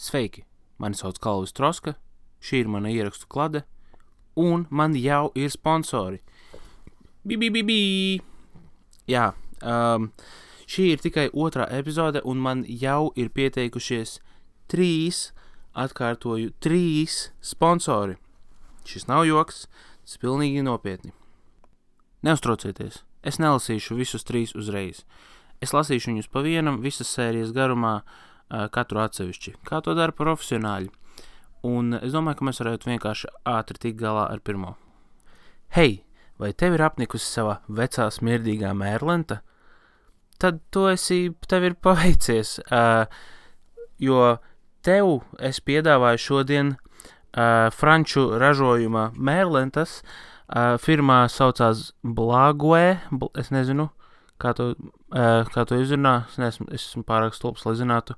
Sveiki, mani sauc Kalvis Troska, šī ir mana ierakstu klade, un man jau ir sponsori. Jā, šī ir tikai otrā epizode, un man jau ir pieteikušies 3 sponsori. Šis nav joks, tas pilnīgi nopietni. Neuztraucieties, es nelasīšu visus 3 uzreiz. Es lasīšu viņus pa vienam visas sērijas garumā, katru atsevišķi, kā to dara profesionāļi. Un es domāju, ka mēs varētu vienkārši ātri tikt galā ar pirmo. Hei, vai tev ir apnikusi sava vecā smirdīgā mērlenta? Tad tev ir paveicies, jo tev es piedāvāju šodien franču ražojuma mērlentas. Firmā saucās Blague, es nezinu, kā to izrunā, es esmu pārāk stulbs, lai zinātu,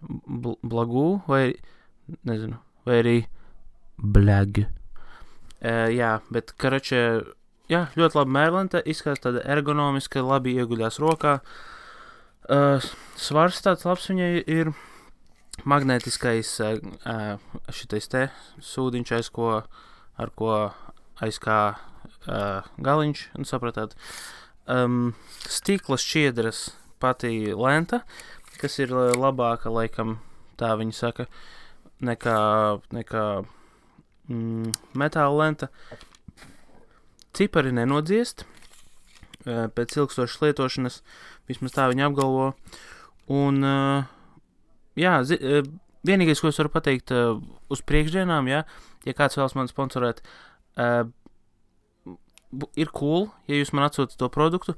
Blagu vai, nezinu, vai arī Blag. Jā, bet, ļoti labi mērlenta, izskatās tāda ergonomiska, labi ieguļās rokā. Svars tāds labs viņai ir magnētiskais šitais te sūdiņš, ar ko aizkā galiņš, un sapratāt. Stikla šķiedras pati lenta, kas ir labāka, laikam, tā viņi saka, nekā metāla lenta. Cipari nenodziest pēc ilgstošas lietošanas, vismaz tā viņi apgalvo. Un, vienīgais, ko es varu pateikt uz priekšdienām, ja kāds vēlas man sponsorēt, ir cool, ja jūs man atsūtat to produktu.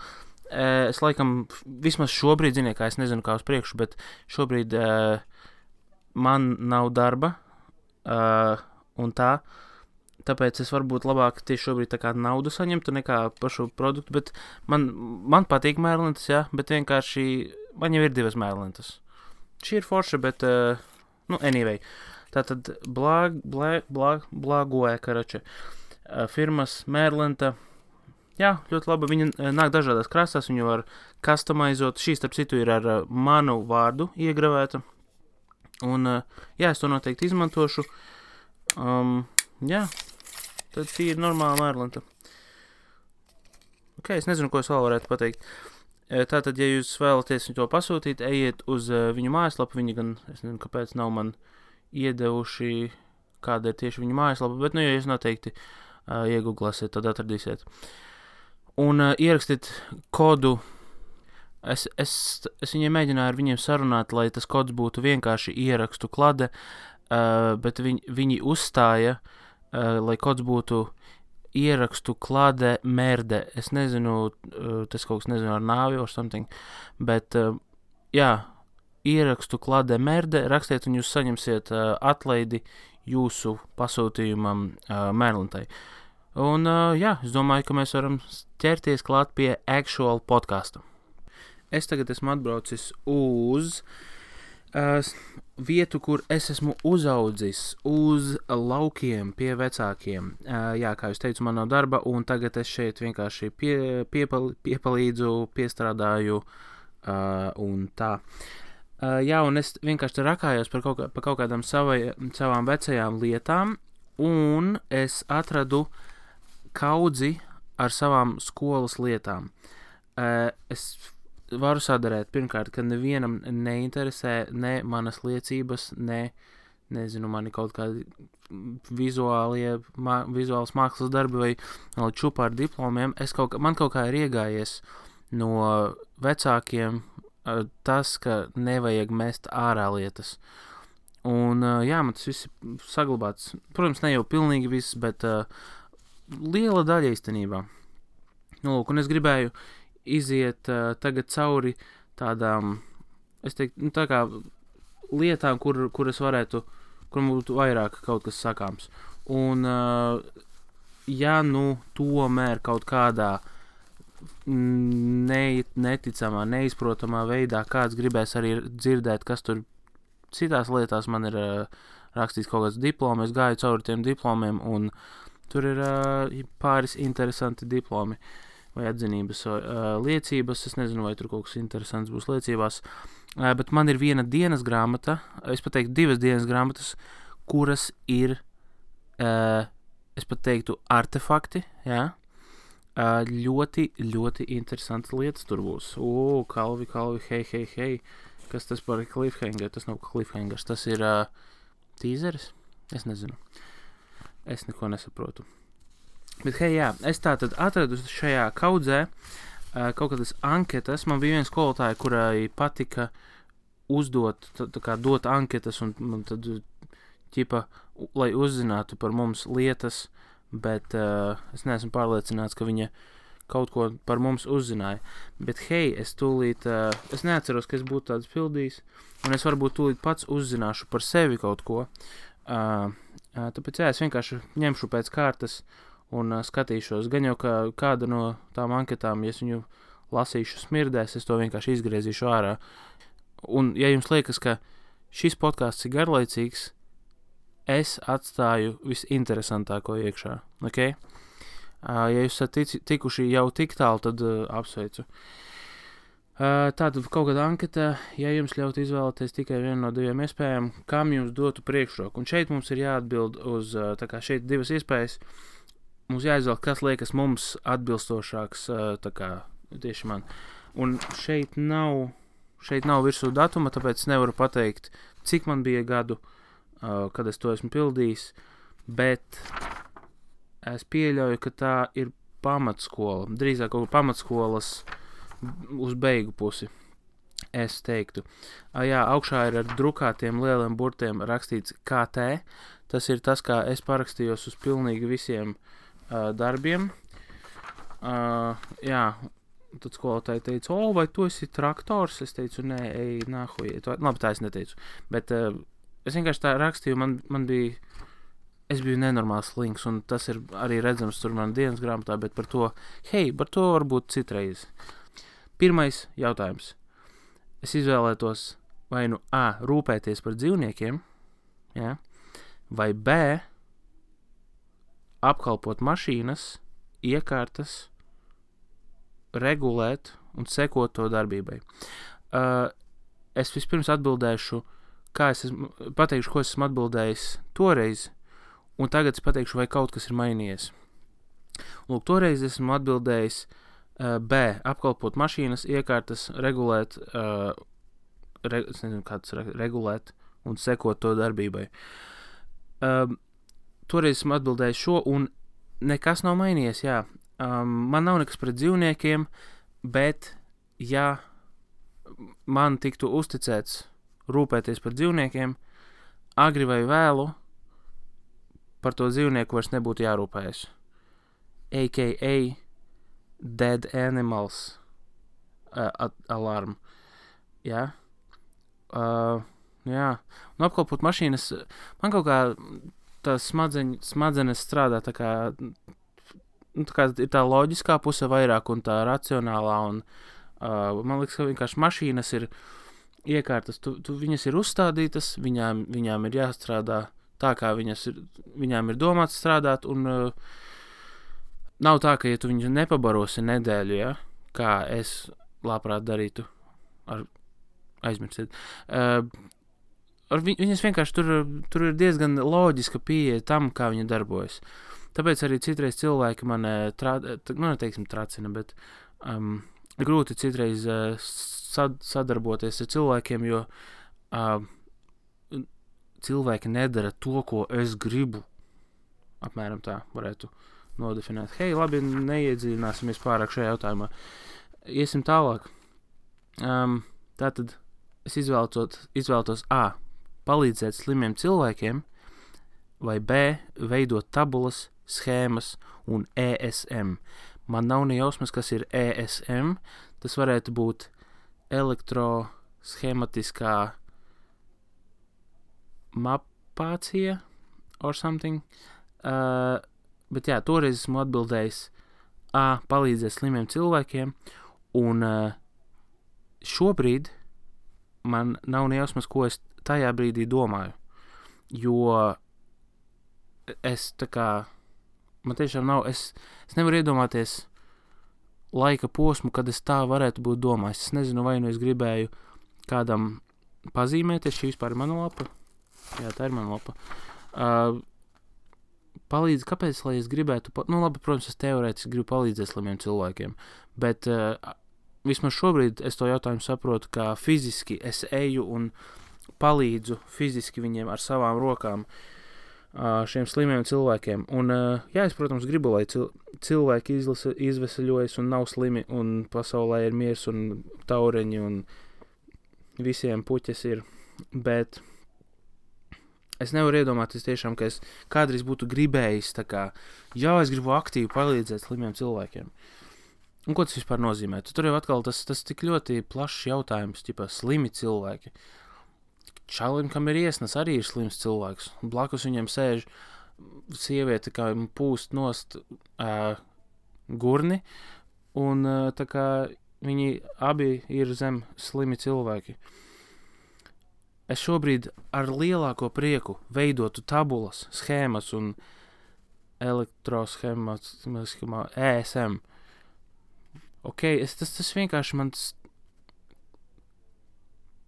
Es laikam, vismaz šobrīd, ziniet, kā es nezinu, kā uz priekšu, bet šobrīd man nav darba, un tāpēc es varbūt labāk tieši šobrīd tā kā naudu saņemtu nekā par šo produktu, bet man patīk mērlentas, jā, bet vienkārši man jau ir 2 mērlentas. Šī ir forša, bet, anyway. Tātad Blague, firmas mērlenta. Jā, ļoti labi, viņa nāk dažādās krāsās, viņu var customizot. Šī, starp citu, ir ar manu vārdu iegravēta. Un, es to noteikti izmantošu. Tad šī ir normāla mērlenta. Es nezinu, ko es vēl varētu pateikt. Tātad, ja jūs vēlaties to pasūtīt, ejiet uz viņu mājaslapu. Viņi gan, es nezinu, kāpēc nav man iedevuši, kāda ir tieši viņu mājaslapa, bet, ja jūs noteikti iegooglasiet, tad atradīsiet. Un ierakstiet kodu. Es viņiem mēģināju ar viņiem sarunāt, lai tas kods būtu vienkārši ierakstu klade, bet viņi uzstāja, lai kods būtu ierakstu klade merde. Es nezinu, tas kaut kas nezinu ar nāvi or something, bet, ierakstu klade merde, rakstiet un jūs saņemsiet atlaidi jūsu pasūtījumam mērlentai. Un, es domāju, ka mēs varam ķerties klāt pie actual podcastu. Es tagad esmu atbraucis uz vietu, kur es esmu uzaudzis, uz laukiem pie vecākiem. Kā jūs teicu, man nav darba, un tagad es šeit vienkārši piepalīdzu, piestrādāju un tā. Un es vienkārši rakājos par kaut kādām savām vecajām lietām, un es atradu kaudzi ar savām skolas lietām. Es varu sadarēt, pirmkārt, ka nevienam neinteresē ne manas liecības, nezinu, mani kaut kādi vizuālas mākslas darbi vai čupa ar diplomiem. Man kaut kā ir iegājies no vecākiem tas, ka nevajag mest ārā lietas. Un, man tas viss ir saglabāts. Protams, ne jau pilnīgi viss, bet liela daļa īstenībā. Un es gribēju iziet tagad cauri tādām, es teiktu, tā kā lietām, kur es varētu, kur būtu vairāk kaut kas sakāms. Un, tomēr kaut kādā neticamā, neizprotamā veidā kāds gribēs arī dzirdēt, kas tur citās lietās man ir rakstīts kaut kāds diplomi, es gāju cauri tiem diplomiem, un tur ir pāris interesanti diplomi. vai atzinības liecības. Es nezinu, vai tur kaut kas interesants būs liecībās. Bet man ir viena dienas grāmata, es pat teiktu 2 dienas grāmatas, kuras ir, es pat teiktu, artefakti, jā. Ļoti, ļoti interesantas lietas tur būs. Kalvi, hei. Kas tas par cliffhanger? Tas nav cliffhangers, tas ir teaseris? Es nezinu. Es neko nesaprotu. Bet hei, jā, es tātad atradu šajā kaudzē kaut kādas anketas. Man bija viena skolotāja, kurai patika uzdot, tā kā dot anketas un tad ķipa, lai uzzinātu par mums lietas, bet es neesmu pārliecināts, ka viņa kaut ko par mums uzzināja. Bet hei, es tūlīt, es neatceros, ka es būtu tāds pildījis, un es varbūt tūlīt pats uzzināšu par sevi kaut ko. Tāpēc jā, es vienkārši ņemšu pēc kārtas un skatīšos. Gan jau, ka kāda no tām anketām, ja es viņu lasīšu smirdēs, es to vienkārši izgriezīšu ārā. Un ja jums liekas, ka šis podcasts ir garlaicīgs, es atstāju visinteresantāko iekšā, ok? Ja jūs esat tikuši jau tik tālu, tad apsveicu. Tātad kaut kāda anketa, ja jums ļaut izvēlēties tikai vienu no 2 iespējām, kam jums dotu priekšroku. Un šeit mums ir jāatbild uz, tā kā šeit 2 iespējas, mums jāizvēl, kas liekas mums atbilstošāks, tā kā tieši man. Un šeit nav virsū datuma, tāpēc nevaru pateikt, cik man bija gadu, kad es to esmu pildījis, bet es pieļauju, ka tā ir pamatskola, drīzāk kaut pamatskolas uz beigu pusi, es teiktu. Jā, augšā ir ar drukātiem lieliem burtiem rakstīts KT, tas ir tas, kā es parakstījos uz pilnīgi visiem darbiem. Jā, tad skolotāji teica, vai tu esi traktors? Es teicu, nē, ej, nahuj. Labi, tā es neteicu, bet es vienkārši tā rakstīju, man bija, es biju nenormāls slinks, un tas ir arī redzams tur man dienas grāmatā, bet par to varbūt citreiz. Pirmais jautājums. Es izvēlētos vai nu A, rūpēties par dzīvniekiem, ja? Vai B, apkalpot mašīnas, iekārtas, regulēt un sekot to darbībai. Es vispirms atbildēšu, pateikšu, ko esmu atbildējis toreiz, un tagad es pateikšu, vai kaut kas ir mainījies. Lūk, toreiz esmu atbildējis B, apkalpot mašīnas, iekārtas, regulēt, es nezinu, kāds regulēt un sekot to darbībai. Toreiz esmu atbildējis šo, un nekas nav mainījies, jā. Man nav nekas pret dzīvniekiem, bet ja man tiktu uzticēts rūpēties par dzīvniekiem, agri vai vēlu, par to dzīvnieku vairs nebūtu jārūpējas. A.k.a. Dead Animals alarm. Jā. Jā. Un apkalpot mašīnas, man kaut kā tās smadzenes strādā tā kā ir tā loģiskā puse vairāk un tā racionālā, un man liekas, ka vienkārši mašīnas ir iekārtas, viņas ir uzstādītas, viņām ir jāstrādā tā, kā viņām ir domāts strādāt, un nav tā, ka ja tu viņu nepabarosi nedēļu, ja, kā es labprāt darītu, aizmirsiet, viņas vienkārši tur ir diezgan loģiska pieeja tam, kā viņa darbojas. Tāpēc arī citreiz cilvēki man, neteiksim tracina, bet grūti citreiz sadarboties ar cilvēkiem, jo cilvēki nedara to, ko es gribu. Apmēram tā varētu nodefinēt. Hei, labi, neiedziļināsimies pārāk šajā jautājumā. Iesim tālāk. Tātad es izvēlētos A, palīdzēt slimiem cilvēkiem, vai B, veidot tabulas, schēmas un ESM. Man nav ne jausmas, kas ir ESM. Tas varētu būt elektroschematiskā mapācija or something. Bet jā, toreiz esmu atbildējis A, palīdzēt slimiem cilvēkiem, un šobrīd man nav ne jausmas, ko es tajā brīdī domāju. Jo es tā kā, man tiešām nav, es nevaru iedomāties laika posmu, kad es tā varētu būt domājis. Es nezinu, vai nu es gribēju kādam pazīmēties, šī vispār ir mana lapa. Jā, tā ir mana lapa. Palīdz, kāpēc, lai es gribētu, labi, protams, es teorētiski gribu palīdzēt slimiem cilvēkiem, bet vismaz šobrīd es to jautājumu saprotu, kā fiziski es eju un palīdzu fiziski viņiem ar savām rokām šiem slimiem cilvēkiem. Un, jā, es, protams, gribu, lai cilvēki izveseļojas un nav slimi, un pasaulē ir miers un taureņi, un visiem puķes ir, bet es nevaru iedomāties tiešām, ka es kādreiz būtu gribējis, tā kā, jā, es gribu aktīvi palīdzēt slimiem cilvēkiem. Un ko tas vispār nozīmē? Tur jau atkal tas tik ļoti plašs jautājums, ķipā slimi cilvēki. Čalim, kam ir iesnas, arī ir slims cilvēks. Blakus viņam sēž sieviete, kā pūst nost gurni, un tā kā viņi abi ir zem slimi cilvēki. Es šobrīd ar lielāko prieku veidotu tabulas, schēmas un elektroschēmas, ESM. Ok, tas vienkārši mans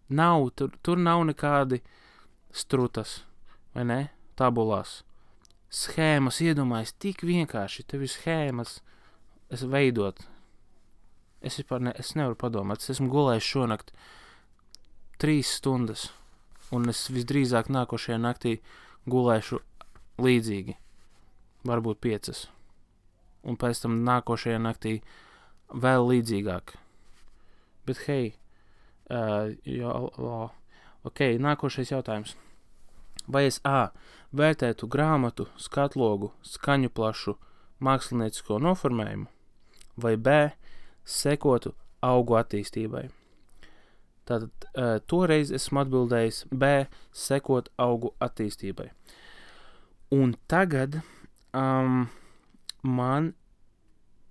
nav, tur nav nekādi strutas, vai ne, tabulās. Schēmas, iedomājies, tik vienkārši, tev ir schēmas veidot. Es nevaru padomāt, es esmu gulējis šonakt 3 stundas, un es visdrīzāk nākošajā naktī gulēšu līdzīgi, varbūt 5, un pēc tam nākošajā naktī vēl līdzīgāk. Bet hei, ok, nākošais jautājums. Vai es vērtētu grāmatu, skatlogu, skaņu plašu, māksliniecisko noformējumu, vai B, sekotu augu attīstībai? Tātad toreiz esmu atbildējis B, sekot augu attīstībai. Un tagad man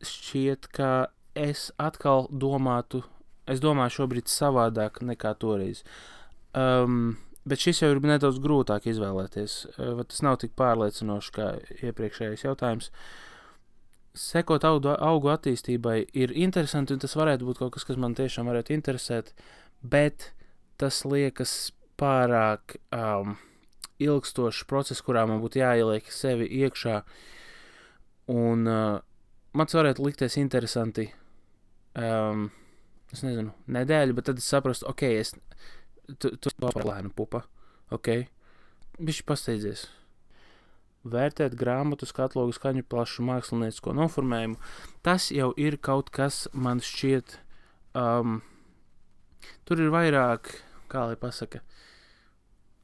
šķiet, ka es atkal domāju šobrīd savādāk nekā toreiz. Bet šis jau ir nedaudz grūtāk izvēlēties. Tas nav tik pārliecinoši kā iepriekšējais jautājums. Sekot augu attīstībai ir interesanti, un tas varētu būt kaut kas, kas man tiešām varētu interesēt, bet tas liekas pārāk ilgstošs process, kurā man būtu jāieliek sevi iekšā, un man tas varētu likties interesanti, es nezinu, nedēļu, bet tad es saprastu, ok, tu lēna pupa, ok, bišķi pasteidzies. Vērtēt grāmatu, skatlogu, skaņu plašu, māksliniecisko noformējumu, tas jau ir kaut kas, man šķiet, tur ir vairāk, kā lai pasaka,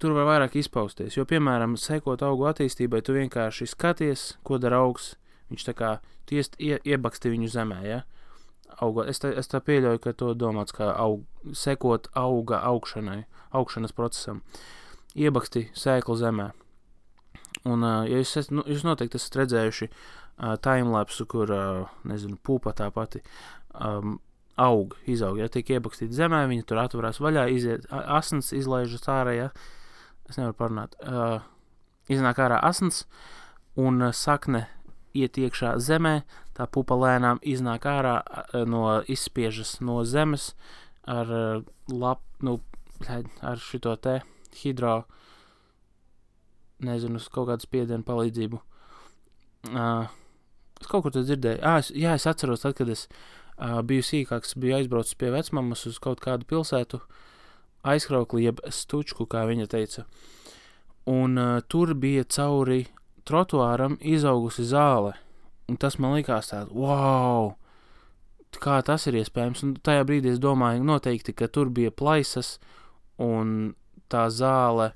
tur var vairāk izpausties, jo, piemēram, sekot augu attīstībai, tu vienkārši skaties, ko dara augs, viņš tā kā, tu iebaksti viņu zemē, ja? Es tā pieļauju, ka to domāts kā sekot auga augšanas procesam. Iebaksti sēklu zemē. Un, ja jūs noteikti esat redzējuši timelapsu, kur, nezinu, pupa tā pati izaug, ja tiek iebakstīta zemē, viņa tur atvarās vaļā, iziet asins, izlaižas ārā, ja? Es nevaru parunāt. Iznāk ārā asins, un sakne iet iekšā zemē, tā pupa lēnām iznāk ārā, izspiežas no zemes ar ar šito te nezinu, kaut kādu spiedienu palīdzību. Es kaut kur to dzirdēju. Es atceros, tad, kad es biju sīkāks, biju aizbraucis pie vecmammas uz kaut kādu pilsētu, aizkraukli, jeb stučku, kā viņa teica. Un tur bija cauri trotuāram izaugusi zāle, un tas man likās tāds, wow, kā tas ir iespējams, un tajā brīdī es domāju noteikti, ka tur bija plaisas, un tā zāle,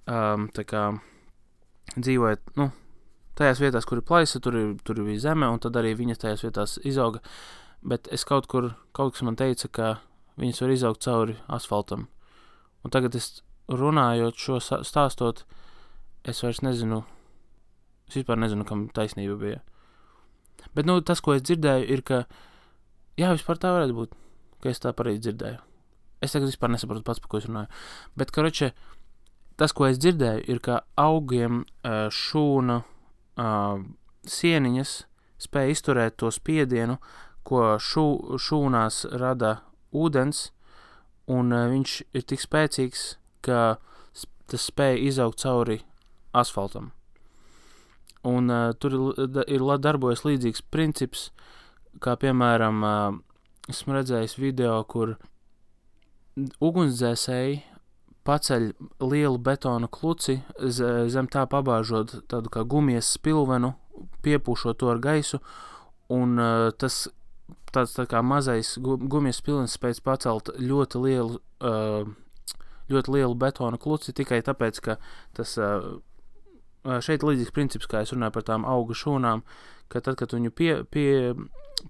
tā kā dzīvojot, tajās vietās, kur ir plaisa, tur bija zeme, un tad arī viņas tajās vietās izauga, bet es kaut kas man teica, ka viņas var izaugt cauri asfaltam, un tagad es runājot šo stāstot, es vairs nezinu, es vispār nezinu, kam taisnība bija. Bet, tas, ko es dzirdēju, ir, ka, jā, vispār tā varētu būt, ka es tā pareizi dzirdēju. Es tagad vispār nesaprotu pats, par ko es runāju. Bet, tas, ko es dzirdēju, ir, ka augiem šūna sieniņas spēja izturēt to spiedienu, ko šūnās rada ūdens, un viņš ir tik spēcīgs, ka tas spēja izaugt cauri asfaltam. Un tur ir darbojas līdzīgs princips, kā piemēram, esmu redzējis video, kur ugunsdzēsēji paceļ lielu betona kluci, zem tā pabāžot tādu kā gumijas spilvenu, piepūšot to ar gaisu, un tas tāds tā kā mazais gumijas spilvens spēc pacelt ļoti lielu betona kluci, tikai tāpēc, ka tas šeit līdzīgs princips, kā es runāju par tām auga šūnām, ka tad, kad viņu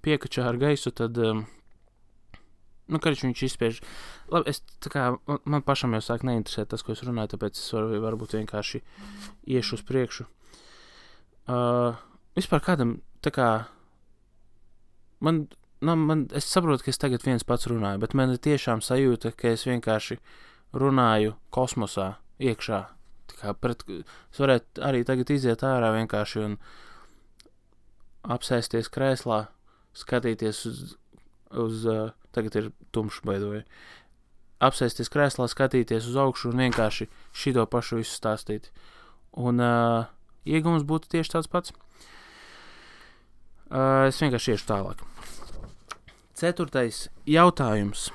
piekačā ar gaisu, tad karš viņš izspiež. Labi, man pašam jau sāk neinteresēt tas, ko es runāju, tāpēc es varbūt vienkārši iešu uz priekšu. Vispār kādam, es saprotu, ka es tagad viens pats runāju, bet man ir tiešām sajūta, ka es vienkārši runāju kosmosā iekšā. Es varētu arī tagad iziet ārā vienkārši un apsēsties krēslā, skatīties uz tagad ir tumšs baidoja. Apsēsties krēslā, skatīties uz augšu un vienkārši šito pašu visu stāstīt. Un iegums būtu tieši tāds pats. Es vienkārši iešu tālāk. 4. jautājums.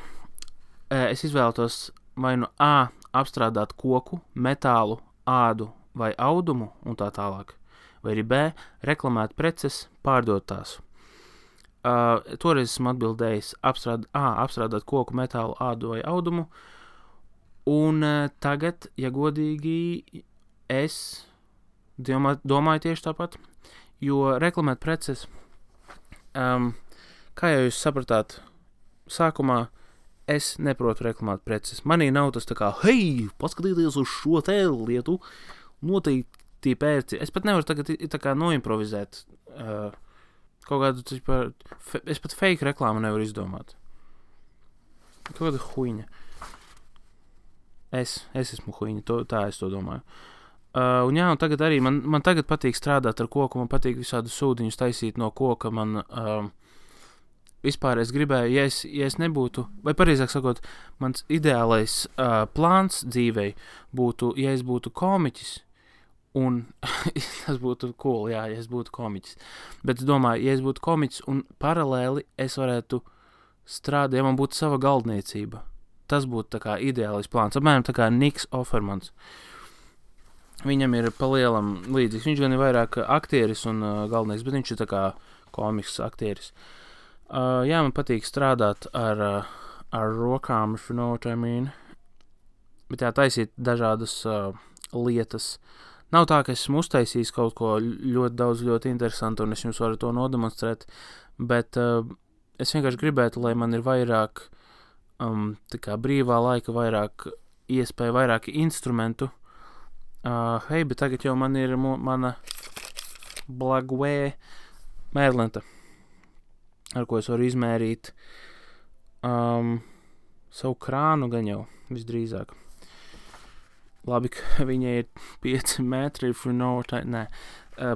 Es izvēlētos vai nu A. apstrādāt koku, metālu, ādu vai audumu un tā tālāk. Vai arī B. reklamēt preces, pārdot tās. Toreiz esmu atbildējis apstrādāt koku, metālu, ādu vai audumu. Un tagad, ja godīgi, es domāju tieši tāpat, jo reklamēt preces, kā jau jūs sapratāt, sākumā es neprotu reklamēt preces. Manī nav tas tā kā, hei, paskatieties uz šo te lietu, noteikti pērci. Es pat nevaru tagad tā kā noimprovizēt kaut kādu, es pat fake reklāmu nevaru izdomāt. Kaut kāda huiņa. Es esmu huiņa, tā es to domāju. Un tagad arī, man tagad patīk strādāt ar koku, man patīk visādu sūdiņus taisīt no koka, man vispār es gribēju, ja es nebūtu, vai pareizāk sakot, mans ideālais plāns dzīvei būtu, ja es būtu komiķis, un tas būtu cool, ja es būtu komiķis. Bet es domāju, ja es būtu komiķis un paralēli es varētu strādāt, ja man būtu sava galdniecība, tas būtu tā kā ideālais plāns. Apmēram tā kā Niks Offermans. Viņam ir palielam līdzīgs. Viņš gan ir vairāk aktieris un galvenais, bet viņš ir tā kā komiks aktieris. Man patīk strādāt ar rokām, if you know what I mean. Bet taisīt dažādas lietas. Nav tā, ka esmu uztaisījis kaut ko ļoti daudz, ļoti interesantu, un es jums varu to nodemonstrēt, bet es vienkārši gribētu, lai man ir vairāk tā kā brīvā laika, vairāk iespēja, vairāk instrumentu. Bet tagad jau man ir mana Blagway mērlenta, ar ko es varu izmērīt savu krānu gan jau visdrīzāk. Labi, ka viņai ir 5 metri, if you know what I... Nē,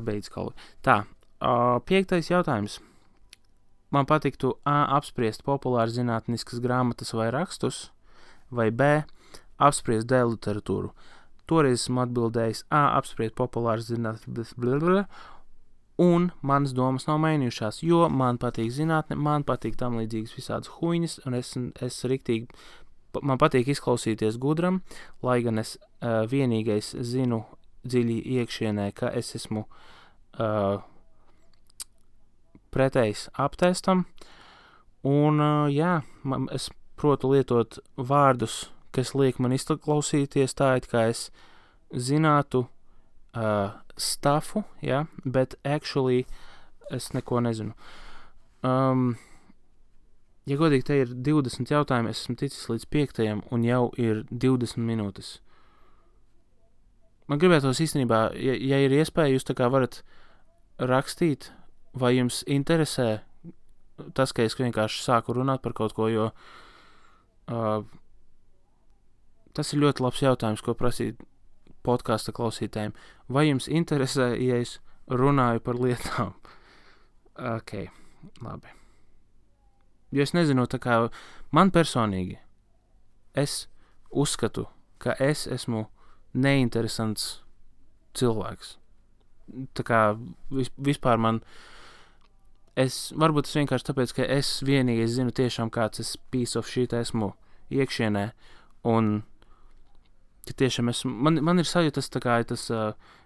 beidz kaut. Tā, 5. jautājums. Man patiktu A. apspriest populāri zinātniskas grāmatas vai rakstus, vai B. apspriest D. literatūru. Toreiz esmu atbildējis A. apspriest populāri zinātniskas un manas domas nav mainījušās, jo man patīk zinātne, man patīk tam līdzīgas visādas huiņas, un es riktīgi, man patīk izklausīties gudram, lai gan es vienīgais zinu dziļi iekšienē, ka es esmu pretējs aptestam, un es protu lietot vārdus, kas liek man izklausīties tā, it kā es zinātu stufu, bet actually es neko nezinu. Ja godīgi, te ir 20 jautājumi, es esmu ticis līdz 5. un jau ir 20 minūtes. Man gribētos īstenībā, ja ir iespēja, jūs tā kā varat rakstīt, vai jums interesē tas, ka es vienkārši sāku runāt par kaut ko, jo tas ir ļoti labs jautājums, ko prasīt podkasta klausītājiem. Vai jums interesē, ja es runāju par lietām? Ok, labi. Jo es nezinu, tā kā man personīgi, es uzskatu, ka es esmu neinteresants cilvēks. Tā kā vispār varbūt es vienkārši tāpēc, ka es vienīgais zinu tiešām kāds es piece of shit esmu iekšienē, un ka tiešām man ir sajūta tas tā kā tas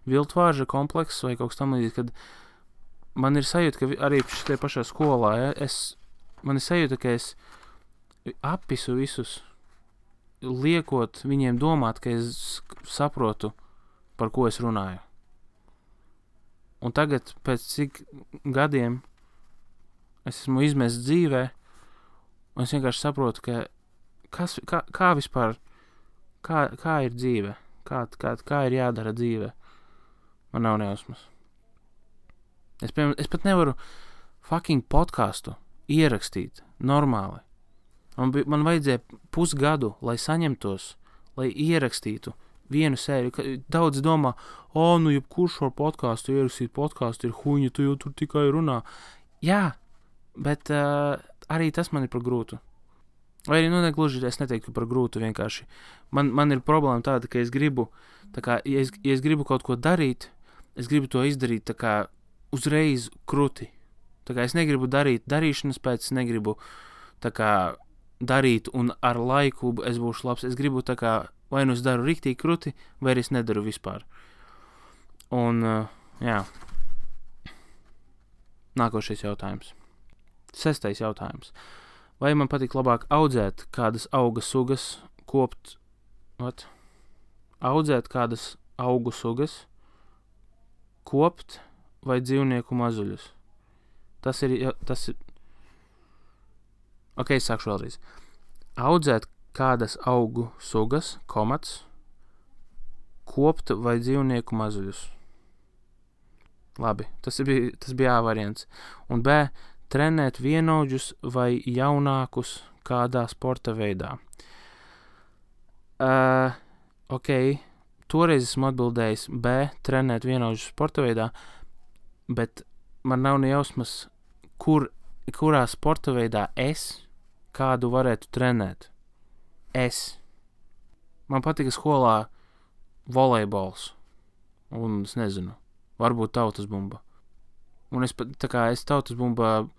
viltvārža komplekss vai kaut kas tam līdzīgs, kad man ir sajūta, ka arī šitie pašā skolā, ja, man ir sajūta, ka es apisu visus, liekot viņiem domāt, ka es saprotu, par ko es runāju. Un tagad, pēc cik gadiem es esmu izmests dzīvē, un es vienkārši saprotu, ka kā vispār, kā ir dzīve, kā ir jādara dzīve. Man nav nejausmas. Es pat nevaru fucking podcastu ierakstīt normāli. Man vajadzēja pusgadu, lai saņemtos, lai ierakstītu vienu sēriju. Daudz domā, nu jebkurš var podcastu ierakstīt, podcastu ir huņa, tu jau tur tikai runā. Jā, bet arī tas man ir par grūtu. Vai arī, negluži, es neteiktu par grūtu vienkārši. Man ir problēma tāda, ka es gribu, tā kā, ja es gribu kaut ko darīt, es gribu to izdarīt tā kā uzreiz kruti. Tā kā es negribu darīt darīšanas pēc, es negribu tā kā darīt un ar laiku es būšu labs. Es gribu tā kā, vai nu es daru riktīgi kruti, vai arī es nedaru vispār. Un, jā. Nākošais jautājums. 6. jautājums. Vai man patīk labāk audzēt kādas auga sugas, audzēt kādas augu sugas, kopt vai dzīvnieku mazuļus? Tas ir Ok, sākšu vēlreiz. Audzēt kādas augu sugas, kopt vai dzīvnieku mazuļus. Labi, tas bija A variants. Un B, trenēt vienaudžus vai jaunākus kādā sporta veidā. Ok, toreiz esmu atbildējis B, trenēt vienaudžus sporta veidā, bet man nav nejausmas, kurā sporta veidā es kādu varētu trenēt. Man patika skolā volejbols. Un es nezinu, varbūt tautas bumba. Un es tautas bumbā,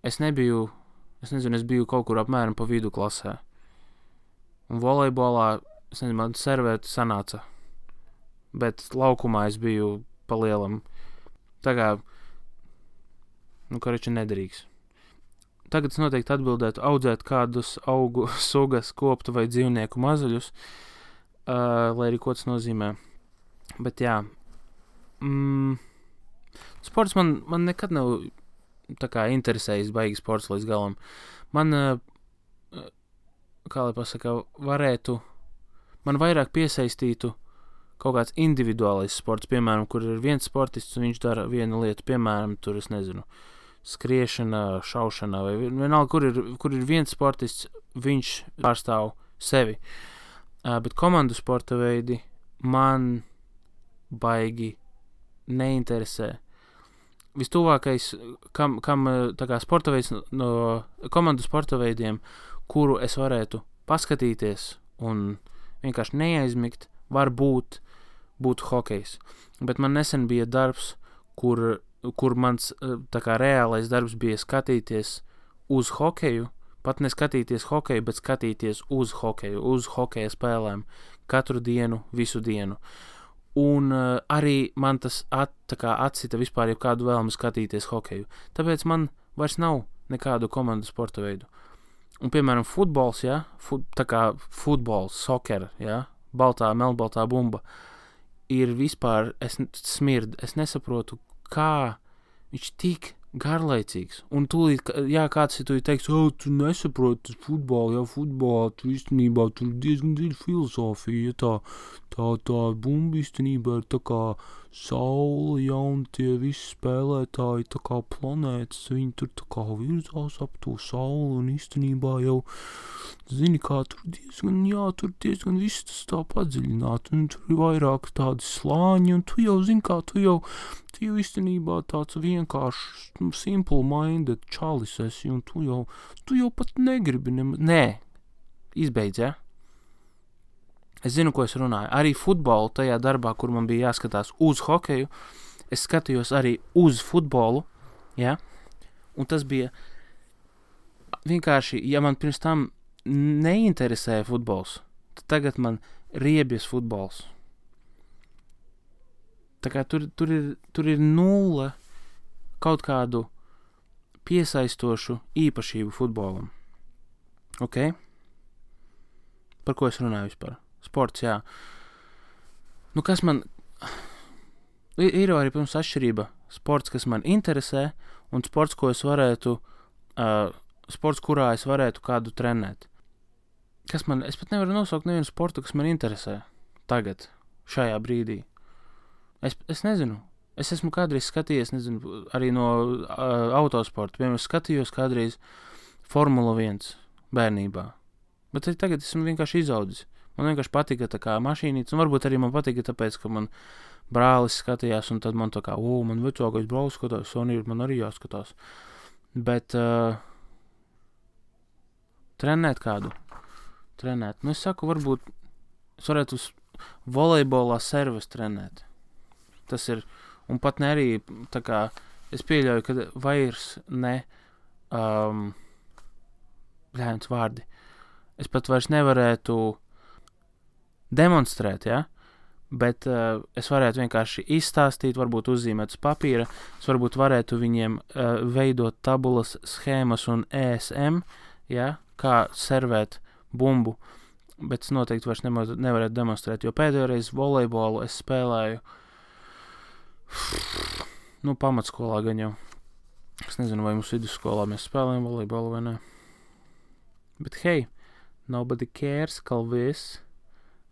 es biju kaut kur apmēram pa vidu klasē. Un volejbolā, man servēt sanāca. Bet laukumā es biju pa lielam. Tā kā, koriči nederīgs. Tagad es noteikti atbildētu audzēt kādus augu sugas, koptu vai dzīvnieku mazuļus, lai arī ko tas nozīmē. Bet jā, sports man nekad nav tā kā interesējis baigi sports līdz galam. Man, kā lai pasaka, man vairāk piesaistītu kaut kāds individuālais sports, piemēram, kur ir viens sportists un viņš dara vienu lietu, piemēram, tur es nezinu, skriešana, šaušana, vai vienalga, kur ir viens sportists, viņš pārstāv sevi. Bet komandu sporta veidi man baigi neinteresē. Vistuvākais, kam tā kā sporta veids no komandu sporta veidiem, kuru es varētu paskatīties un vienkārši neaizmigt, var būt hokejs. Bet man nesen bija darbs, kur mans tā kā reālais darbs bija skatīties uz hokeju, pat neskatīties hokeju, bet skatīties uz hokeju, uz hokeja spēlēm katru dienu, visu dienu. Un arī man tas atcita vispār jebkādu vēlmi skatīties hokeju. Tāpēc man vairs nav nekādu komandu sporta veidu. Un, piemēram, futbols, ja? Tā kā futbols, soccer, ja? Melnbaltā bumba, ir vispār, es nesaprotu, kā viņš tik garlaicīgs. Un tūlīt, kāds ir teiks, tu nesaproti futbolu, futbolā, tu īstenībā tur diezgan dziļa filosofija, tā bumba īstenībā ir tā kā saule, ja, un tie visi spēlētāji tā kā planētas, viņi tur tā kā virzās ap to sauli, un īstenībā jau, zini, kā tur diezgan viss tas tā padziļināt, un tur ir vairāk tādi slāņi, un tu jau, zini, kā tu jau īstenībā tāds vienkārši simple-minded čalis esi, un tu jau pat negribi Nē, izbeidz, ja? Es zinu, ko es runāju. Arī futbolu tajā darbā, kur man bija jāskatās uz hokeju, es skatījos arī uz futbolu, ja? Un tas bija vienkārši, ja man pirms tam neinteresēja futbols, tad tagad man riebjas futbols. Tā kā tur ir nulle kaut kādu piesaistošu īpašību futbolam. Ok? Par ko es runāju vispār? Sports, jā. Nu, kas man... Ir arī, protams, atšķirība. Sports, kas man interesē, un sports, ko es varētu... sports, kurā es varētu kādu trenēt. Es pat nevaru nosaukt nevienu sportu, kas man interesē. Tagad, šajā brīdī. Es nezinu. Es esmu kādreiz skatījies, nezinu, arī no autosporta. Piemēram, skatījos kādreiz Formula 1 bērnībā. Bet tagad esmu vienkārši izaudzis. Man vienkārši patika tā kā mašīnītes, un varbūt arī man patika tāpēc, ka man brālis skatījās, un tad man tā kā, man vecākais brālis skatās, un man arī jāskatās. Bet trenēt kādu? Nu, es saku, varbūt es varētu uz volejbolā serves trenēt. Tas ir, un pat ne arī, tā kā, es pieļauju, ka vairs ne, vārdi. Es pat vairs nevarētu demonstrēt, ja? Bet es varētu vienkārši izstāstīt, varbūt uzzīmēt uz papīra, es varbūt varētu viņiem veidot tabulas, schēmas un ESM, ja? Kā servēt bumbu, bet es noteikti vairs nevarētu demonstrēt, jo pēdējo reizi volejbolu es spēlēju pamatskolā gan jau. Es nezinu, vai mums vidusskolā mēs spēlējam volejbolu vai ne. Bet hei, nobody cares, Kalvis.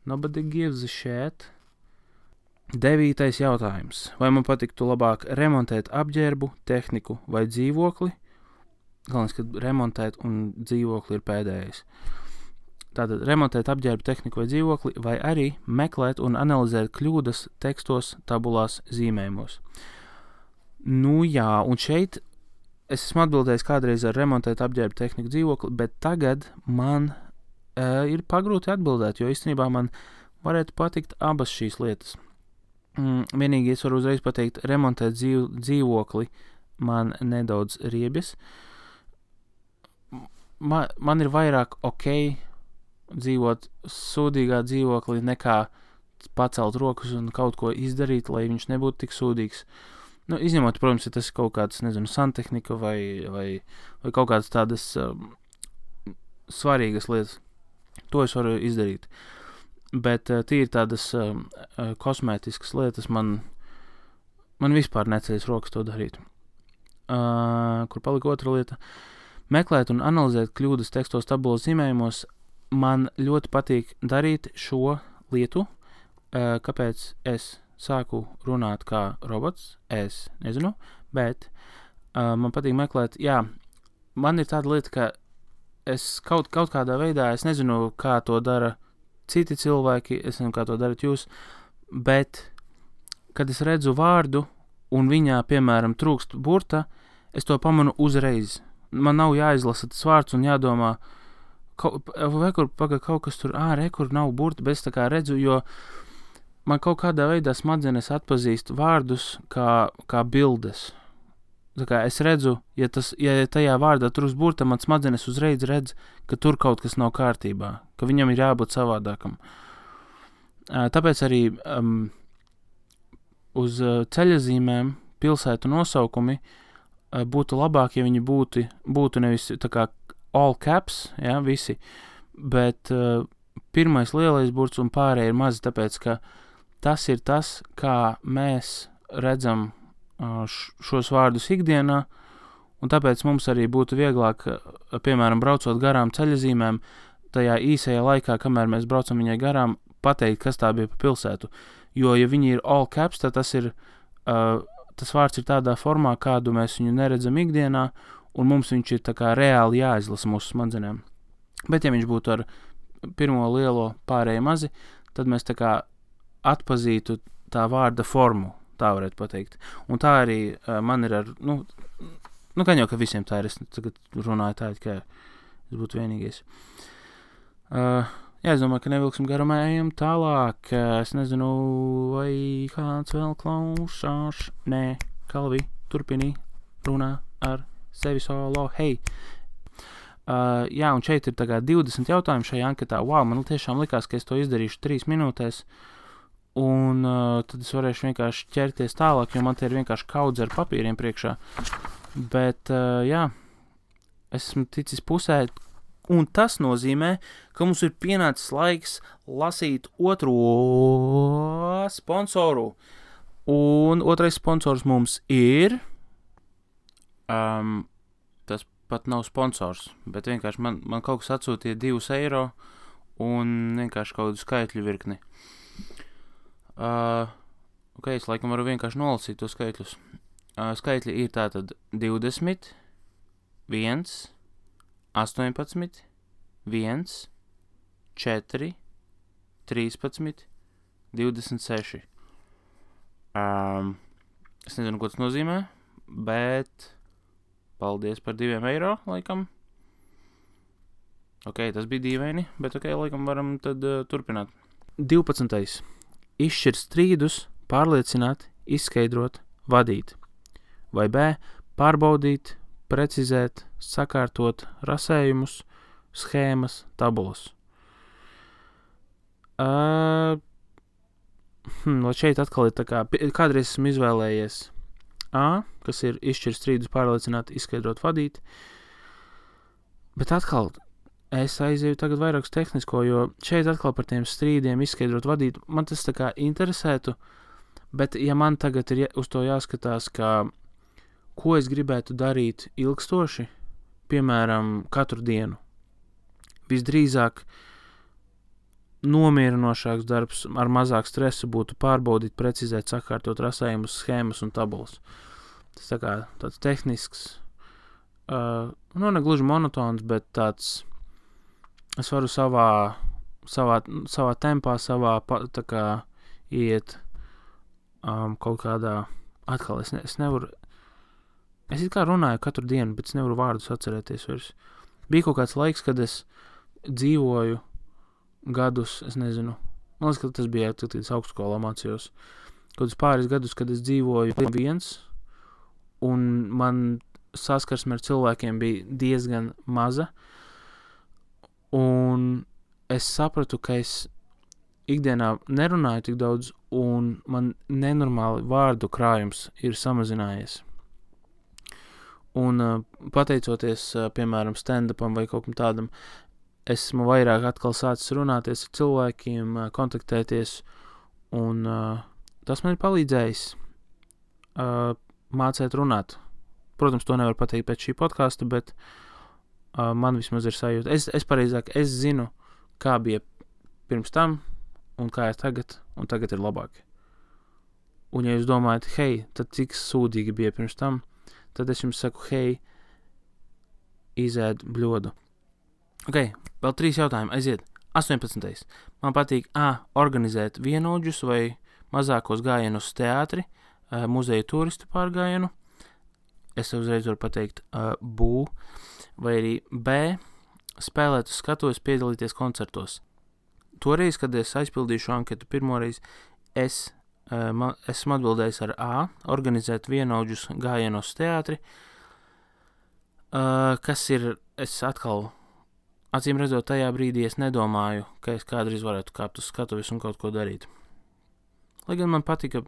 Nobody gives a shit. 9. jautājums. Vai man patiktu labāk remontēt apģērbu, tehniku vai dzīvokli? Galvenais, ka remontēt un dzīvokli ir pēdējais. Tātad remontēt apģērbu, tehniku vai dzīvokli, vai arī meklēt un analizēt kļūdas tekstos, tabulās, zīmējumos. Nu jā, un šeit es esmu atbildējis kādreiz ar remontēt apģērbu, tehniku, dzīvokli, bet tagad man ir pagrūti atbildēt, jo īstenībā man varētu patikt abas šīs lietas. Vienīgi es varu uzreiz pateikt, remontēt dzīvokli man nedaudz riebjas. Man ir vairāk dzīvot sūdīgā dzīvoklī nekā pacelt rokas un kaut ko izdarīt, lai viņš nebūtu tik sūdīgs. Nu, izņemot, protams, ja tas ir kaut kāds, nezinu, santehnika vai kaut kādas tādas svarīgas lietas. To es varu izdarīt. Bet tīri tādas kosmētiskas lietas man vispār neceļas rokas to darīt. Kur palika otra lieta? Meklēt un analizēt kļūdas tekstos, tabulas, zīmējumos. Man ļoti patīk darīt šo lietu. Kāpēc es sāku runāt kā robots? Es nezinu, bet man patīk meklēt, man ir tāda lieta, ka es kaut kādā veidā, es nezinu, kā to dara citi cilvēki, es nezinu, kā to darat jūs, bet, kad es redzu vārdu un viņā, piemēram, trūkst burta, es to pamanu uzreiz. Man nav jāizlasa tas vārds un jādomā, kaut kas tur, kur nav burta, bet es tā kā redzu, jo man kaut kādā veidā smadzenes atpazīst vārdus kā bildes. Tā kā es redzu, ja tajā vārdā trūkst burta, man smadzenes uzreiz redz, ka tur kaut kas nav kārtībā, ka viņam ir jābūt savādākam. Tāpēc arī uz ceļazīmēm pilsētu nosaukumi būtu labāk, ja viņi būtu nevis tā kā all caps, visi, bet pirmais lielais burts un pārējie ir mazi, tāpēc, ka tas ir tas, kā mēs redzam šos vārdus ikdienā, un tāpēc mums arī būtu vieglāk, piemēram, braucot garām ceļazīmēm, tajā īsajā laikā, kamēr mēs braucam viņai garām, pateikt, kas tā bija pa pilsētu. Jo, ja viņi ir all caps, tad tas vārds ir tādā formā, kādu mēs viņu neredzam ikdienā, un mums viņš ir tā kā reāli jāizlasa mūsu smadzenēm. Bet, ja viņš būtu ar pirmo lielo pārēju mazi, tad mēs tā kā atpazītu tā vārda formu, tā varētu pateikt. Un tā arī man ir ar, gan jau, ka visiem tā ir, es tagad runāju tā, ka es būtu vienīgais. Jā, es domāju, ka nevilksim garumā, ejam tālāk. Es nezinu, vai kāds vēl klausās. Nē, Kalvi, turpini runā ar sevi solo. Hei! Jā, un šeit ir tagad 20 jautājumu šajā anketā. Wow, man tiešām likās, ka es to izdarīšu 3 minūtēs. Un tad es varēšu vienkārši ķerties tālāk, jo man te ir vienkārši kaudze ar papīriem priekšā. Bet, jā, esmu ticis pusē. Un tas nozīmē, ka mums ir pienācis laiks lasīt otro sponsoru. Un otrais sponsors mums ir... tas pat nav sponsors, bet vienkārši man kaut kas atsūtīja 2 eiro un vienkārši kaut kādu skaitļu virkni. Ok, es laikam varu vienkārši nolasīt to skaitļus. Skaitļi ir tātad 20, 1... 18, 1, 4, 13, 26. Es nezinu, ko tas nozīmē, bet paldies par 2 eiro, laikam. Ok, tas bija dīvaini, bet ok, laikam varam tad turpināt. 12. Izšķirt strīdus, pārliecināt, izskaidrot, vadīt. Vai B. Pārbaudīt, precizēt, sakārtot rasējumus, schēmas, tabulas. Lai šeit atkal ir tā kā, kādreiz esmu izvēlējies A, kas ir izšķirt strīdus, pārliecināt, izskaidrot, vadīt, bet atkal es aizēju tagad vairāk uz tehnisko, jo šeit atkal par tiem strīdiem izskaidrot, vadīt, man tas tā kā interesētu, bet ja man tagad ir uz to jāskatās, ka ko es gribētu darīt ilgstoši, piemēram, katru dienu. Visdrīzāk nomierinošāks darbs ar mazāk stresu būtu pārbaudīt, precizēt, sakārtot rasējumus, schēmas un tabulas. Tas tā kā tāds tehnisks, ne gluži monotons, bet tāds, es varu savā tempā, tā kā iet kaut kādā, atkal es nevaru, es it kā runāju katru dienu, bet es nevaru vārdus atcerēties vairs. Bija kaut kāds laiks, kad es dzīvoju gadus, es nezinu, man liekas, ka tas bija, kad es augstskolā mācījos, kaut pāris gadus, kad es dzīvoju viens, un man saskarsme ar cilvēkiem bija diezgan maza, un es sapratu, ka es ikdienā nerunāju tik daudz, un man nenormāli vārdu krājums ir samazinājies. Un pateicoties, piemēram, stand-upam vai kaut kam tādam, esmu vairāk atkal sācis runāties ar cilvēkiem, kontaktēties, un tas man ir palīdzējis mācēt runāt. Protams, to nevar pateikt pēc šī podkasta, bet man vismaz ir sajūta. Es zinu, kā bija pirms tam, un kā ir tagad, un tagad ir labāk. Un ja jūs domājat, hei, tad cik sūdīgi bija pirms tam, tad es jums saku, hei, izēd bļodu. Ok, vēl 3 jautājumi, aiziet. 18. Man patīk organizēt vienaudžus vai mazākos gājienus uz teātri, muzeju turistu pārgājienu. Es uzreiz varu pateikt bū, vai arī B, spēlēt uz skatuves, piedalīties koncertos. Toreiz, kad es aizpildīšu anketu pirmoreiz, esmu atbildējis ar A, organizēt vienaudžus gājienos teātri, kas ir, es atkal, acīm redzot, tajā brīdī es nedomāju, ka es kādreiz varētu kāpt uz skatuves un kaut ko darīt. Lai gan man patika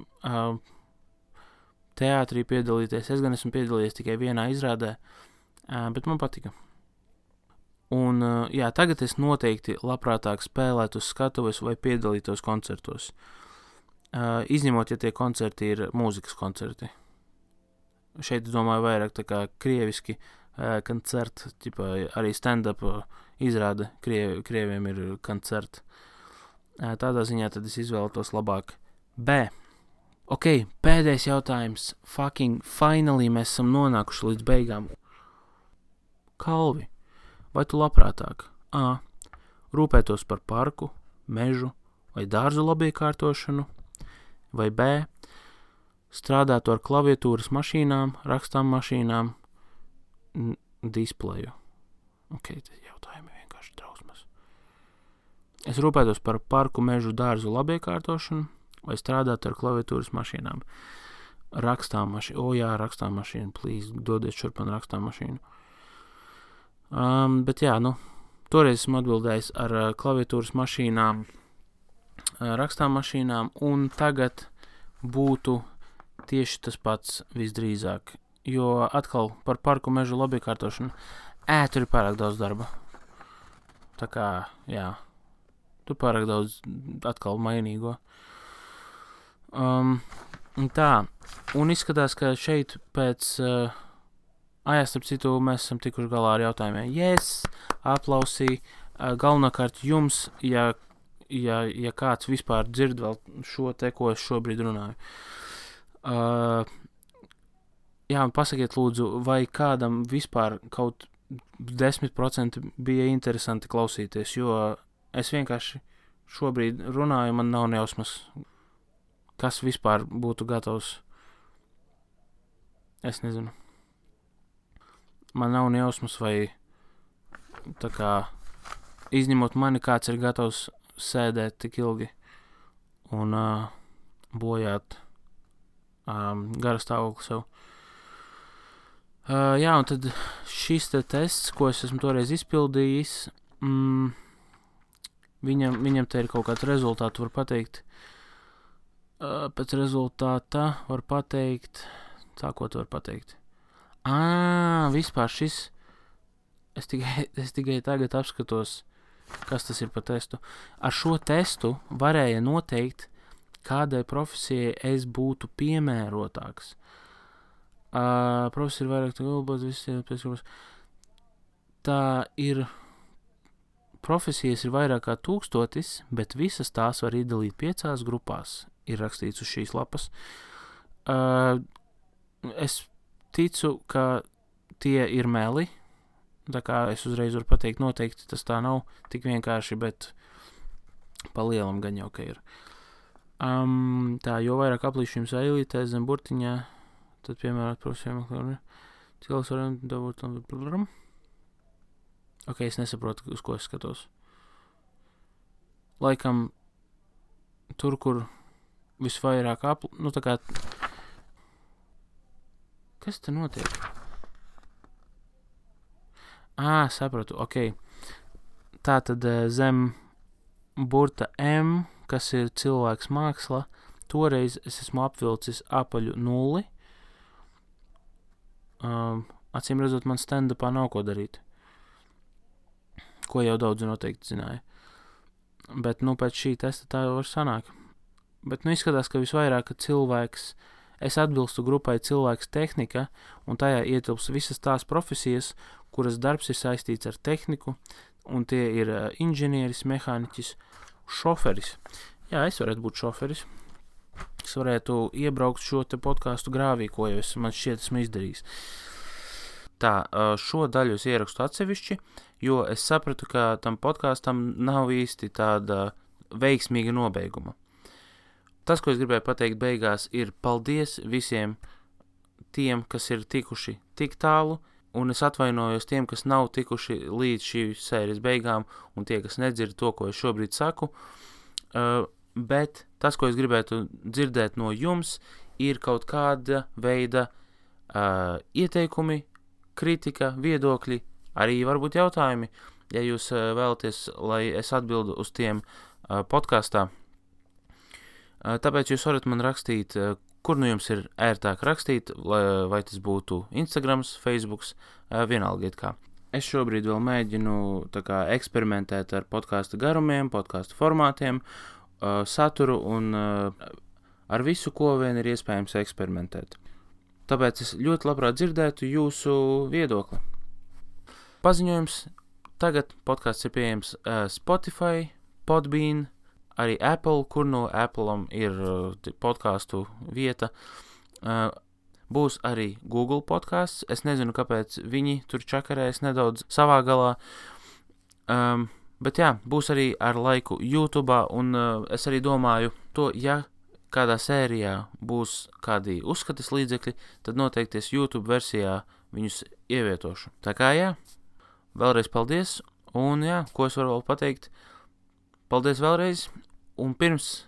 teātrī piedalīties, es gan esmu piedalījies tikai vienā izrādē, bet man patika. Un, jā, tagad es noteikti labprātāk spēlētu uz skatuves vai piedalītos koncertos. Izņemot, ja tie koncerti ir mūzikas koncerti. Šeit, domāju, vairāk tā kā krieviski koncerti, arī stand-up izrāda, krieviem ir koncerti. Tādā ziņā tad es izvēlētos labāk B. Ok, pēdējais jautājums. Finally mēs esam nonākuši līdz beigām. Kalvi, vai tu labprātāk A. rūpētos par parku, mežu vai dārzu labiekārtošanu, vai B. strādātu ar klaviatūras mašīnām, rakstām mašīnām, displeju? Ok, tas jautājumi vienkārši drausmas. Es rūpētos par parku, mežu, dārzu labiekārtošanu vai strādātu ar klaviatūras mašīnām. Rakstām mašīnu. Jā, rakstām mašīnu, please, dodiet šurp man rakstām mašīnu. Bet jā, toreiz esmu atbildējis ar klaviatūras mašīnām, rakstām mašīnām, un tagad būtu tieši tas pats visdrīzāk, jo atkal par parku, mežu labiekārtošanu, tur ir pārāk daudz darba. Tā kā, jā, tu pārāk daudz atkal mainīgo. Tā, un izskatās, ka šeit pēc... starp citu, mēs esam tikuši galā ar jautājumiem. Yes, aplausī. Galvenokārt jums, ja kāds vispār dzird vēl šo te, ko es šobrīd runāju. Jā, un pasakiet lūdzu, vai kādam vispār kaut 10% bija interesanti klausīties, jo es vienkārši šobrīd runāju, man nav nejausmas, kas vispār būtu gatavs. Es nezinu. Man nav nejausmas, vai tā kā izņemot mani, kāds ir gatavs sēdēt tik ilgi un bojāt gara stāvokli sev. Jā, un tad šis te tests, ko es esmu toreiz izpildījis, viņam te ir kaut kāds rezultāts, var pateikt. Pēc rezultāta var pateikt, ko tu var pateikt? Vispār šis, es tikai tagad apskatos, kas tas ir pa testu. Ar šo testu varēja noteikt, kādai profesijai es būtu piemērotāks. Profesija ir vairāk galbūt visi. Tā ir, profesijas ir vairāk kā 1000, bet visas tās var iedalīt 5 grupās, ir rakstīts uz šīs lapas. Es ticu, ka tie ir meli, tā kā es uzreiz varu pateikt, noteikti tas tā nav tik vienkārši, bet pa lielam gan jau, ka ir. Tā, jo vairāk aplīšu jums eilītē zem burtiņā, tad piemērot profesijām, cilvēks varam dabūt. Ok, es nesaprotu, uz ko es skatos. Laikam, tur, kur visvairāk tā kā... Kas te notiek? Sapratu, ok. Tā tad zem burta M, kas ir cilvēks māksla, toreiz es esmu apvilcis apaļu 0. Acīm redzot, man stand-upā nav ko darīt. Ko jau daudzi noteikti zināja. Bet, pēc šī testa tā jau var sanāk. Bet, izskatās, ka visvairāk, ka cilvēks... Es atbilstu grupai cilvēks tehnika, un tajā ietilps visas tās profesijas, kuras darbs ir saistīts ar tehniku, un tie ir inženieris, mehāniķis, šoferis. Jā, es varētu būt šoferis. Es varētu iebraukt šo te podcastu grāvī, ko jau man šķiet esmu izdarījis. Tā, šo daļu es ierakstu atsevišķi, jo es sapratu, ka tam podkastam nav īsti tāda veiksmīga nobeiguma. Tas, ko es gribēju pateikt beigās, ir paldies visiem tiem, kas ir tikuši tik tālu, un es atvainojos tiem, kas nav tikuši līdz šīs sērijas beigām, un tie, kas nedzird to, ko es šobrīd saku. Bet tas, ko es gribētu dzirdēt no jums, ir kaut kāda veida ieteikumi, kritika, viedokļi, arī varbūt jautājumi, ja jūs vēlaties, lai es atbildu uz tiem podkastā. Tāpēc jūs varat man rakstīt, kur jums ir ērtāk rakstīt, vai tas būtu Instagrams, Facebooks, vienalga it kā. Es šobrīd vēl mēģinu eksperimentēt ar podkāstu garumiem, podkāstu formātiem, saturu un ar visu, ko vien ir iespējams eksperimentēt. Tāpēc es ļoti labprāt dzirdētu jūsu viedokli. Paziņojums. Tagad podkāsts ir pieejams Spotify, Podbean, arī Apple, kur no Apple'am ir podcastu vieta. Būs arī Google podcasts. Es nezinu, kāpēc viņi tur čakarēs nedaudz savā galā. Bet jā, būs arī ar laiku YouTube'ā, un es arī domāju to, ja kādā sērijā būs kādi uzskatas līdzekļi, tad noteikti es YouTube versijā viņus ievietošu. Tā kā jā, vēlreiz paldies, un jā, ko es varu vēl pateikt? Paldies vēlreiz, un pirms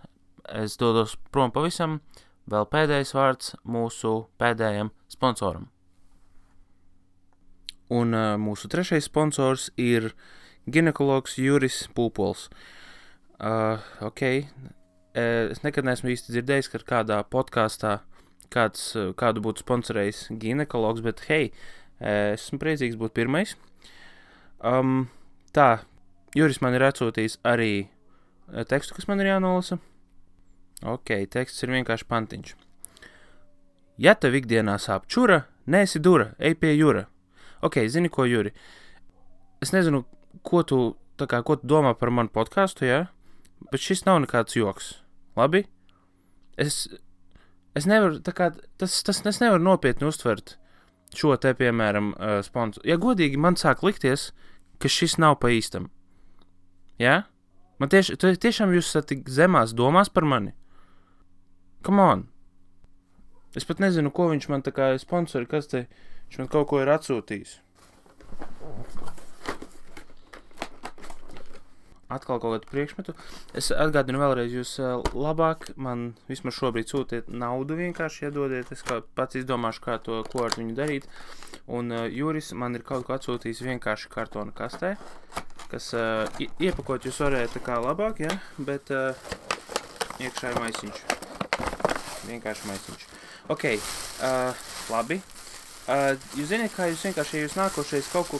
es dodos prom pavisam, vēl pēdējais vārds mūsu pēdējam sponsoram. Un mūsu trešais sponsors ir ginekologs Juris Pūpols. Es nekad neesmu īsti dzirdējis, ka kādā podkāstā kādu būtu sponsorējis ginekologs, bet hei, esmu priecīgs būt pirmais. Tā, Juris man ir atsūtījis arī tekstu, kas man ir jānolasa. Teksts ir vienkārši pantiņš. Ja tev ikdienā sāp čura, neesi dura, ej pie Jura. Zini ko, Juri? Es nezinu, ko tu domā par manu podcastu, jā? Bet šis nav nekāds joks. Labi? Es nevaru, es nevaru nopietni uztvert šo te, piemēram, sponsoru. Ja godīgi, man sāk likties, ka šis nav pa īstam. Jā? Man tiešām jūs esat tik zemās domās par mani? Come on! Es pat nezinu, ko viņš man tā kā sponsori, kas te, viņš man kaut ko ir atsūtījis. Atkal kaut kādu priekšmetu. Es atgādinu vēlreiz, jūs labāk man vismaz šobrīd sūtiet naudu vienkārši iedodiet. Es pats izdomāšu, ko ar viņu darīt. Un Juris man ir kaut ko atsūtījis vienkārši kartona kastē, kas iepakot jūs varētu tā kā labāk, ja? Bet iekšā ir maisiņš. Vienkārši maisiņš. Labi. Jūs ziniet, kā jūs vienkārši, ja jūs nākošais kaut ko,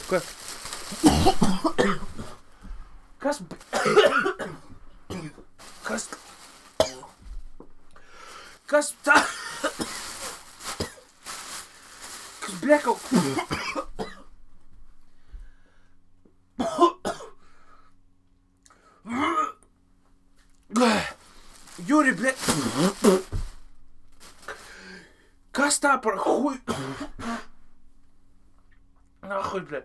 Kas tā? Kas bļa kaut... Juri, bļa... Kas tā par huj... Nahuj, bļa...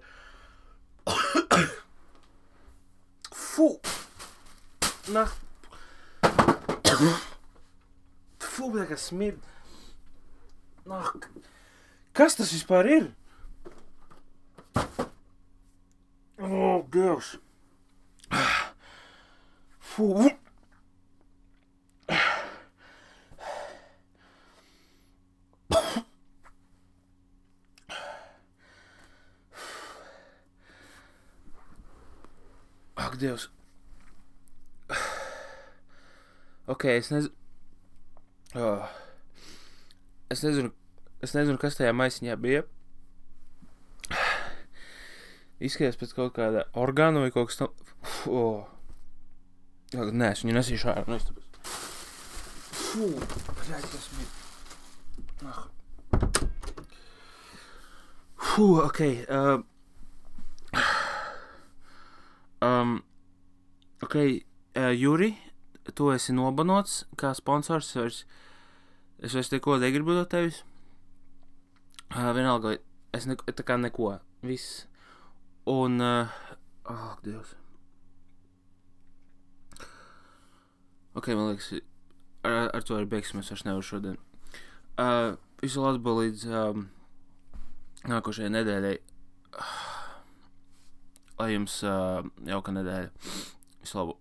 Fū! Fū, bļa, kas smid. Kas tas vispār ir? Dievs. Fū. Dievs. Es nezinu, kas tajā maisiņā bija. Izskatās pēc kaut kāda orgāna vai kaut kas Nē, es viņu nesīšu ārā, no istabas. Fū, bļaļ, tas mir. Fū, Juri, tu esi nobanots kā sponsors, es vairs neko negribu no tevis. Vienalga, es tā kā neko, viss. Un, Dievs. Man liekas, ar to arī beigsim, es vairs nevaru šodien. Visu labu līdz nākošajai nedēļai. Lai jums jauka nedēļa. Visu labu.